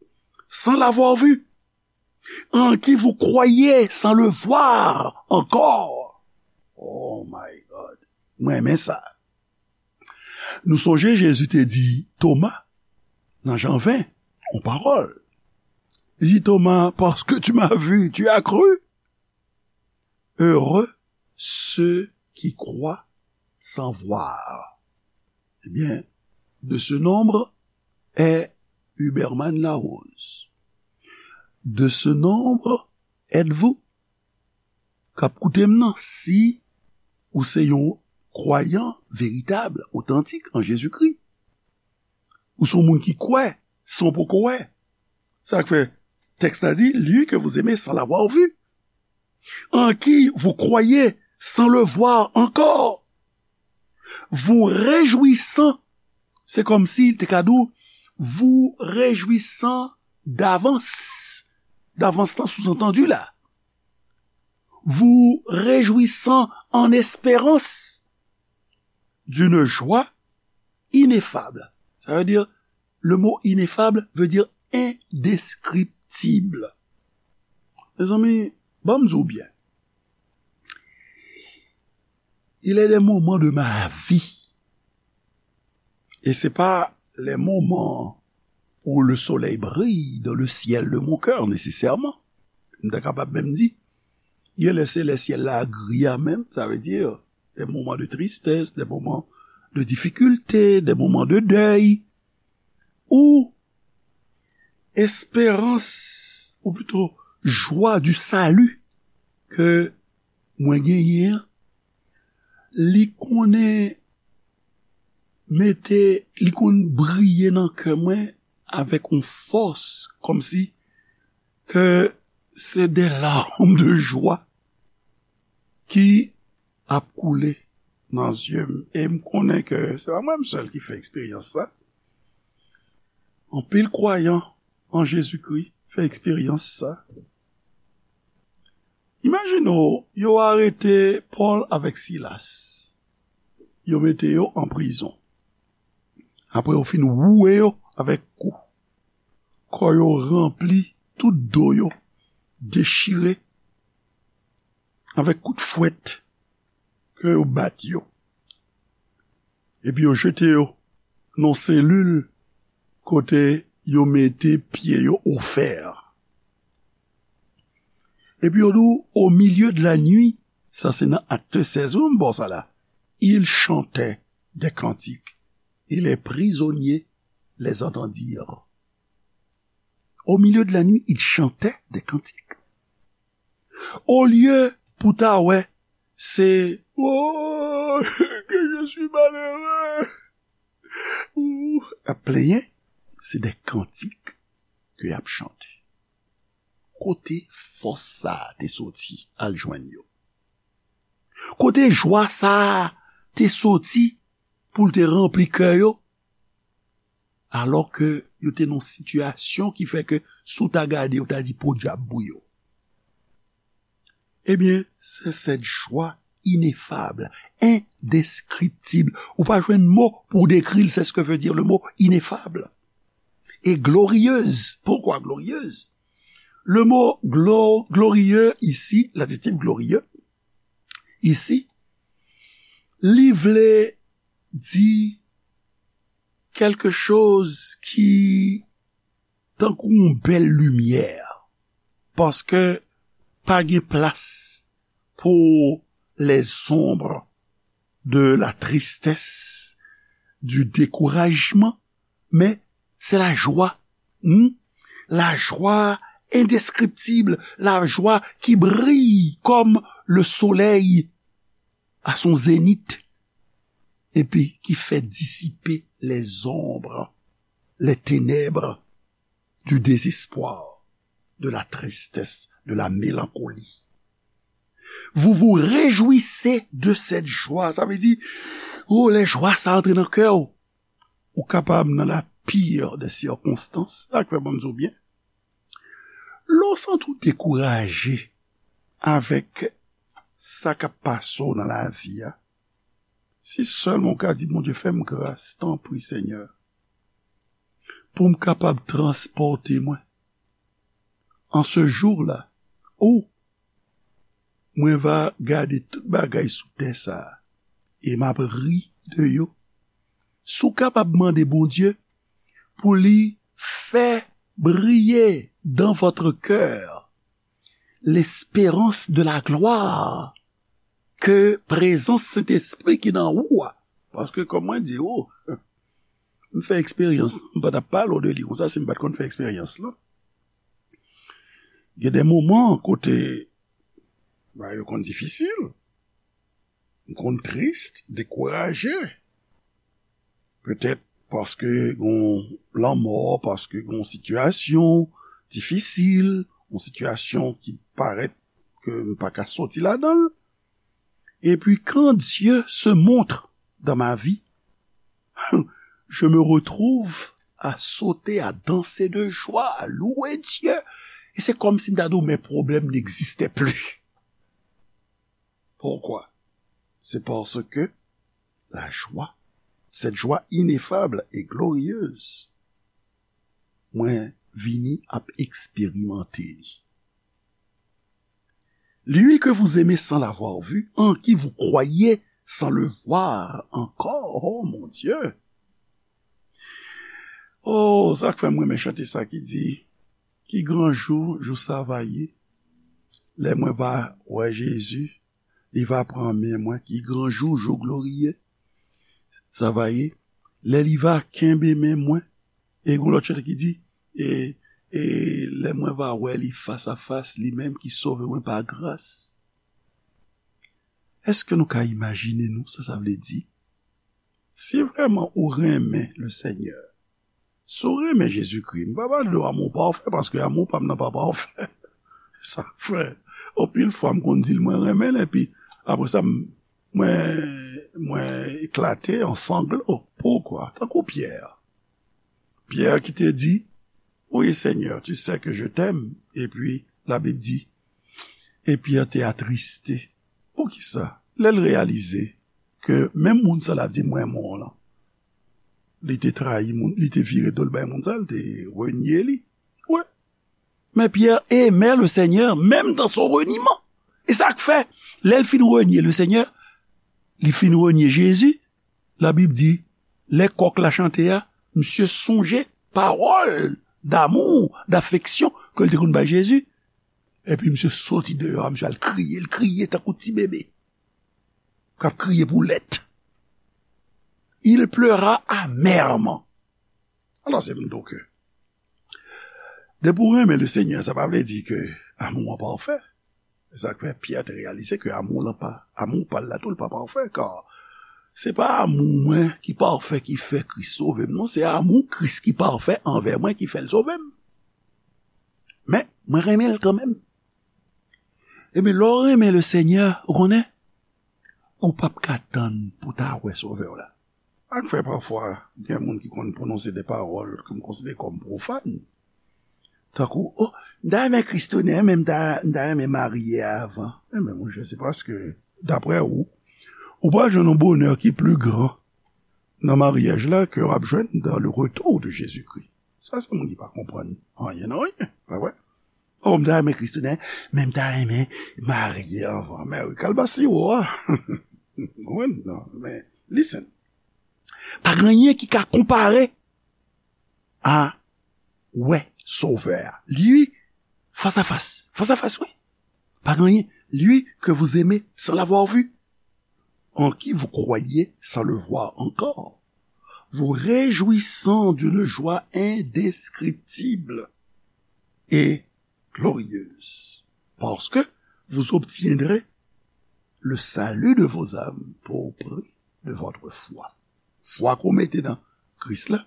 sans l'avoir vu, en qui vous croyez sans le voir encore. Oh my God. Mwen renmen sa. Nou sonje Jezi te di Toma, nan Jan ven, yon pawòl. Li di Toma, parce que tu m'as vu, tu as cru. Heureux ceux qui croient sans voir. Eh bien, de ce nombre est Huberman Larose. De ce nombre êtes-vous? K ap koute m nan, si ou se yon kwayan veritab, otantik an Jezikri, ou se yon moun ki kwè, san w poko wè. Sa k fè tèks la di, lui que vous aimez sans l'avoir vu, en qui vous croyez sans le voir encore, vous réjouissant, se kòmsi l te ka di w, vous réjouissant d'avance. D'avance lan sous-entendu la. Vous réjouissant en espérance d'une joie ineffable. Ça veut dire, le mot ineffable veut dire indescriptible. Mezanmi, ban m di w byen. Il est des moments de ma vie. Et c'est pas les moments où le soleil brille dans le ciel de mon cœur, nécessairement. M ta kapab menm di, gen lè se lè syèl la gri a menm, ça veut dire des moments de tristesse, des moments de difficulté, des moments de deuil, ou esperans, ou plito jwa du salut ke mwen genyen an, li konnen mete, li konn briye nan kè mwen avèk yon fòs, kòmsi ke se des larmes de joie ki ap koule nan zye m. E m konnen ke se pa mwen m sèl ki fè eksperyans sa. Anpil kwayan an Jezikri fè eksperyans sa. Imajine w, yo arete Pòl avèk Silas. Yo mete yo an prizon. Apre yo fin woule yo avèk kou. Kò yo ranpli, tout do yo dechire avèk kout fwèt ke yo bat yo. Epi yo jete yo nan selil kote yo mete pye yo o fè. Epi yo di w, au milieu de la nuit, sa se nan Acte seize, wi, m ba w sa la. Ils chantaient des cantiques, et les prisonniers les entendirent. Au milieu de la nuit, ils chantaient des cantiques. Olye pou ta wè, se, oh, que je suis malheureux, ou ap plenyen, se de kantik ke y ap chante. Kote fòs sa a te soti al jwenn yo? Kote jwa sa a te soti pou l te ranpli kè yo? Alò ke yo te nan yon sitiyasyon ki fè ke si w ta gade, yo ta di podyab pou yo. Ebyen, c'est cette joie ineffable, indescriptible. Ou pa jwenn mo pou w dekri l, c'est ce que veut dire le mot ineffable. Et glorieuse. Pourquoi glorieuse? Le mot glo-, glorieux ici, l'adjectif glorieux, ici, li vle di quelque chose ki tankou yon bèl limyè, paske pa gen plas pou les ombres de la tristesse, du découragement, mais c'est la joie, hmm? La joie indescriptible, la joie qui brille comme le soleil à son zénith, et puis qui fait dissiper les ombres, les ténèbres du désespoir, de la tristesse, de la mélancolie. Vous vous réjouissez de cette joie. Sa vle di, oh, lè jwa sa antre nan kè w, ou kapab nan la pire des circonstances, sa k fè ban m di w byen. Lè w santi w dekouraje avèk sa k ap pase w nan lavi a, si sèlman w ka di, Bondye, fè m gras, tanpri, Senyè, pou m kapab transpòte mwen. En ce jour-là, ou Mwen va gade tout bagay sou tè sa a, e m ap ri de yo. Si w kapab mande Bondye pou li fè briye dans votre cœur l'espérance de la gloire ke prezans Sentespri ki nan ou a. Paske, kòm mwen di ou, m fè eksperyans, m pa t ap pale w de li konsa si m pa t konn fè eksperyans lan. Gen de moman kote bagay yo konn difisil, m konn tris, dekouraje. Petèt paske gon lanmò, paske gon sitiyasyon difisil, yon sitiyasyon ki parèt ke m pa ka soti ladan l. Et puis, quand Dieu se montre dans ma vie, je me retrouve à sauter, à danser de joie, à louer Dieu. Et c'est comme si m ta di w, mes problèmes n'existaient plus. Pourquoi? C'est parce que la joie, cette joie ineffable et glorieuse, mwen vini ap eksperimante li. Lui que vous aimez sans l'avoir vu, en qui vous croyez sans le voir encore. Oh, mon Dieu! Oh, sa k fè m renmen chante sa ki di, ki gran jou, jou sa va ye, lè mwen va wè Jezi, li va pran men mwen, ki gran jou, jou gloriye, sa va ye, lè li va kenbe men mwen. E gon lòt chante ki di, e, e lè mwen va wè li fas a fas, li menm ki sove mwen pa gras. Èske nou ka imajine nou sa sa vle di? Si vrèman ou renmen le Senyè, si w renmen Jezikri, m pa pale de amour parfait, paske amour pa m nan pa pafè. Sa fè anpil fwa m konn di l mwen renmen l, epi apre sa, m, mwen, mwen eklate an sanglo. Poukwa? Tankou Pyè. Pyè ki te di, oui, Seigneur, tu sais que je t'aime. Epi, Labib di, e Pyè te atriste. Poukisa? Lè l reyalize ke menm moun sa l ap di, "M renmen w" lan, li te trayi moun, li te vire do l bay moun sa, li te renye li. Wi. Men Pyè aimait le Seigneur, même dans son reniement. E sa k fè, lè l fin renye le Seigneur, li fin renye Jezi, Labib di, lè kòk la chante a, misye sonje pawòl damou, dafeksyon ke l te konn bay Jezi. Epi misye soti deyò a, misye al kriye, l kriye tankou ti bebe k ap kriye pou lèt. Il pleura amèrement. Alò, se m di w ke depi w renmen Lesenyè, sa pa vle di ke amou an pafè. Se sa k fè Pyè te reyalize ke amou lan pa, amou pa l la tou, l pa pafè, kar se pa amou mwen ki pafè ki fè Kris sove m, non, se amou Kris ki pafè anvè mwen ki fè l sove m. Men, mwen renmen l kanmenm. Ebyen, lè w renmen Lesenyè, ou konnen, ou p ap ka tann pou w ta wè Sovè w la. Sa k fè pafwa, gen moun ki konn pwononse de pawòl ke m konsidere kòm pwofàn. Tankou, o, m ta renmen Kris tounen, men m ta, m ta renmen marye avan. Enben, monchè, se paske, daprè ou, ou pral jwenn yon bonè ki pli gran nan maryaj la ke w ap jwenn dans le retour de Jésus-Christ. Sa, se moun ki pa konprann anyen nan anyen, pa vre? O, m ta renmen Kris tounen, men m ta renmen marye avan. Men wi, kalbasi ou a. Wi, non, men, listen. Pa gen anyen ki ka konpare a wè Sovè a. Li, fas a fas. Fas a fas, wi. Pa gen anyen. Lui que vous aimez sans l'avoir vu, en qui vous croyez sans le voir encore, vous réjouissant d'une joie indescriptible et glorieuse, parce que vous obtiendrez le salut de vos âmes pour prix de votre foi. Fwa ke w mete nan Kris la,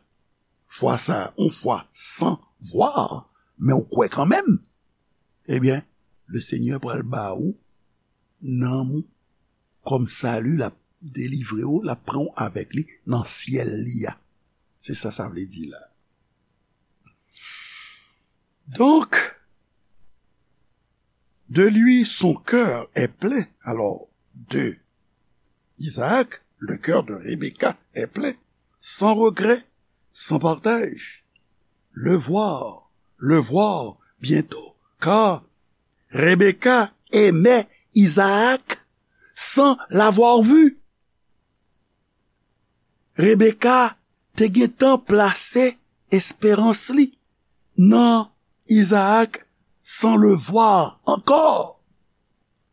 fwa sa a, yon fwa san vwa, men w kwè kanmenm, ebyen, Lesenyè pral ba ou nanm ou kòm sali, l ap delivre w, l ap pran w avèk li nan syèl li a. Se sa sa vle di la. Donk, de lui son cœur est plein. Alors, de Isaac, le cœur de Rebecca est plein, sans regret, sans partage. Le voir, le voir bientôt, car Rebecca aimait Isaac sans l'avoir vu. Rebecca te gentan plase esperans li nan Isaac sans le voir encore.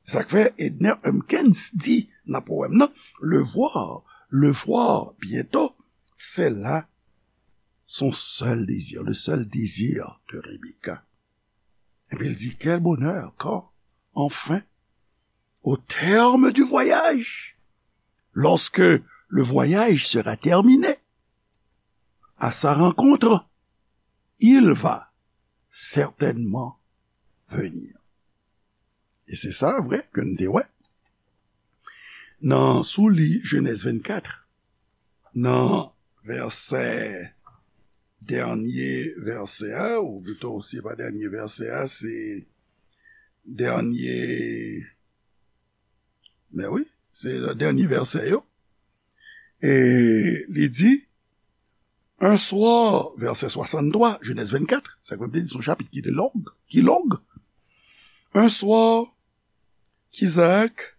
Sa k fè Edner Humpkins di nan powèm nan, le voir, le voir bientôt, c'est là son seul désir, le seul désir de Rebecca. Epi l di, quel bonheur quand, enfin, au terme du voyage, lorsque le voyage sera terminé, à sa rencontre, il va certainement venir. E se sa vre ke n te wè. Nan, si w li Jenèz vennkat, nan vèsè, dènye vèsè a, ou pito se pa dènye vèsè a, se dènye, men wi, se dènye vèsè yo. E li di, un soir, vèsè swasanntwa, Jenèz vennkat, sa k fè m te di se yon chapit ki te long, ki long. Un soir, qu'Isaac,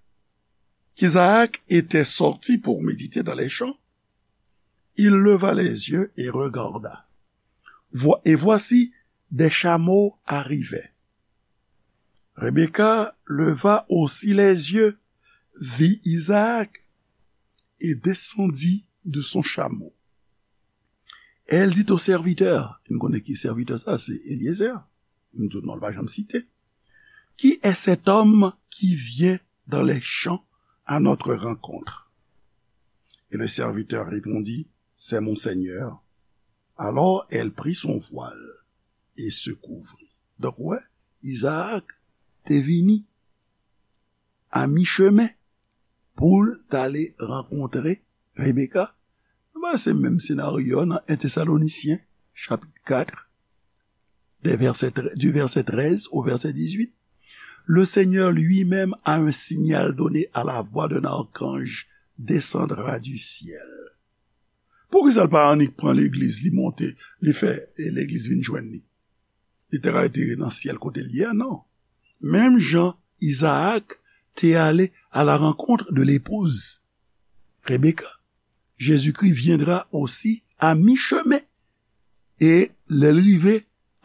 qu'Isaac était sorti pour méditer dans les champs, il leva les yeux et regarda. Voi-, et voici, des chameaux arrivaient. Rebecca leva aussi les yeux, vit Isaac, et descendit de son chameau. Elle dit au serviteur, nou konnen ki sèvitè sa, se Eliezer, nou tout non l pa janm site, qui est cet homme qui vient dans les champs à notre rencontre? Et le serviteur répondit, c'est mon Seigneur. Alors elle prit son voile et se couvrit. Donk, ou wè, Izaak te vini a michemen pou l t ale rankontre Rebeka. Nou wè se menm senaryo a nan en Tesalonisyen, chapit kat, des versets tre-, du verset treize au verset dix-huit. Le Seigneur lui-même, à un signal donné à la voix d'un archange, descendra du ciel. Poukisa l pa annik pran legliz, li monte, li fè, e, legliz vin jwenn li? Li te ka rete nan syèl kote l ye a, non. Menm jan Izaak te ale à la rencontre de l'épouse Rebecca, Jésus-Christ viendra aussi à mi-chemin E lè l rive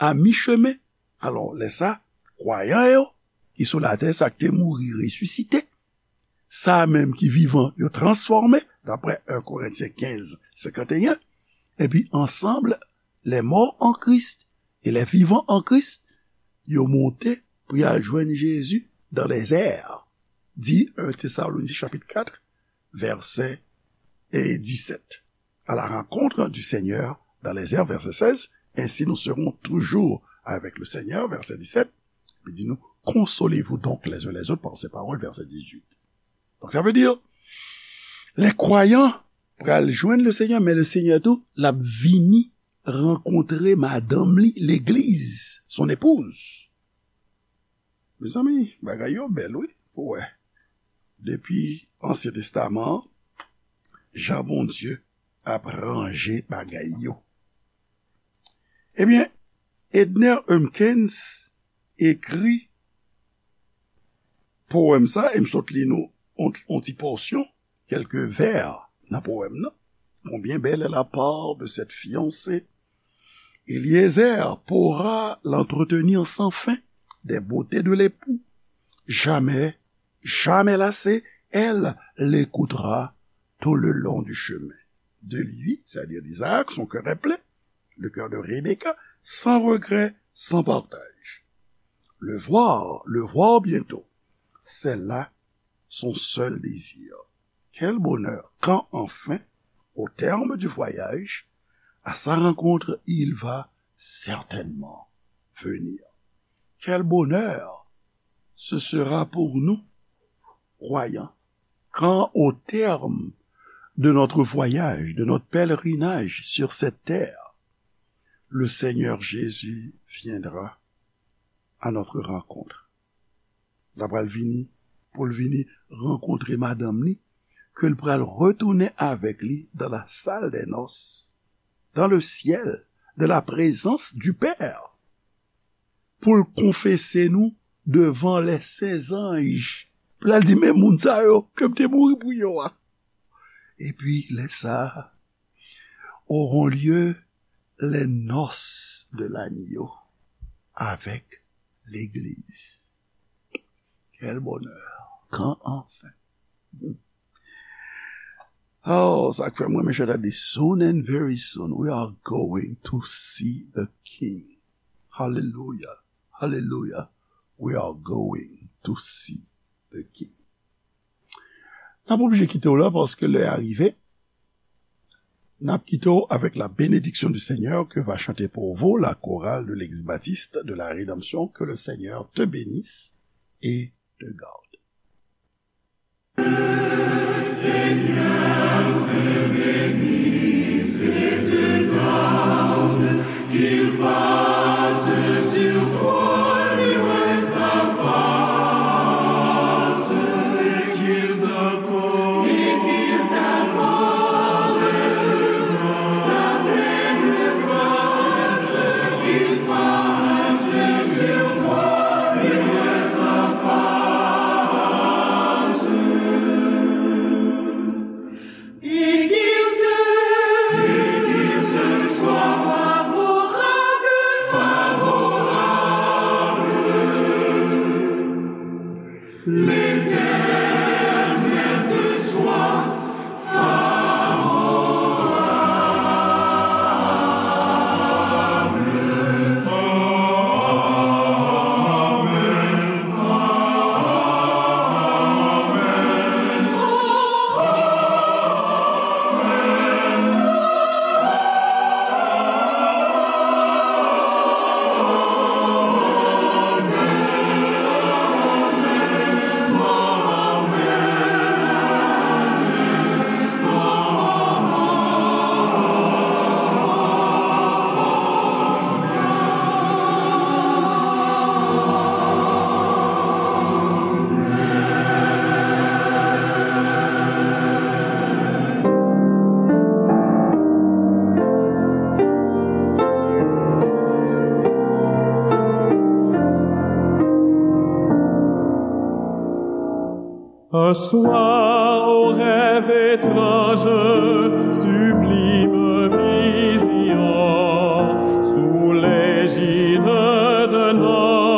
a michemen, alò, lè sa, kwayan yo ki sou latè, sa k te mouri, resisite, sa menm ki vivan, yo transfòme, daprè en Korentyen kenz, senkanteyen, epi ansanm, les morts en Christ et les vivants en Christ, yo monte pou y al jwenn Jezi dans les airs, di en Tesalonisyen chapit kat, vèsè, e, disèt. À la rencontre du Seigneur dans les airs, verset seize, ainsi nous serons toujours avec le Seigneur, verset dix-sept, epi di nou, consolez-vous donc les uns les autres par ces paroles, verset dix-huit. Donk, sa vle di, lè kwayan pral jwenn le Seigneur, men le Seigneur tou, l ap vini rankontre madanm li, legliz, son épouse. Mezanmi, bagay yo bèl, wi, pou wè. Depi Ansyen Testaman an, jan Bondye ap ranje bagay yo. Ebyen, Edner Humpkins ekri powèm sa, e m sot li nou on, on ti pòsyon, kèlke vè nan powèm nan. Combien belle est la part de cette fiancée. Eliezer pourra l'entretenir sans fin des beautés de l'époux. Jamais, jamais lassée, elle l'écoutera tout le long du chemin. De lui, c'est-à-dire d'Isaac, son cœur est plein, le cœur de Rebecca, sans regret, sans partage. Le voir, le voir bientôt, c'est là son seul désir. Quel bonheur quand enfin, au terme du voyage, à sa rencontre, il va certainement venir. Quel bonheur ce sera pour nous, croyants, quand au terme de notre voyage, de notre pèlerinage sur cette terre, le Seigneur Jésus viendra à notre rencontre. L ap pral vini, pou l vini rankontre madanm li, ke l pral retounen avèk li dans la salle des noces, dans le ciel, de la présence du Père, pou l konfese nou devan les saints anges. Pou l al di, men moun sa yo ke m te mouri pou yo a. Epi, lè sa a, auront lieu les noces de l'agneau avec l'église. Quel bonheur. Quand enfin. Oh, sa k fè mwen, mes chers amis, soon and very soon, we are going to see the King. Hallelujah. Hallelujah. We are going to see the King. N ap oblije kite w la paske lè a rive. N ap kite w avec la bénédiction du Seigneur que va chanter pour vous la chorale de l'Église baptiste de la Rédemption. Que le Seigneur te bénisse et te garde. Un soir, au rêve étrange, sublime vision, Sous l'égide de notre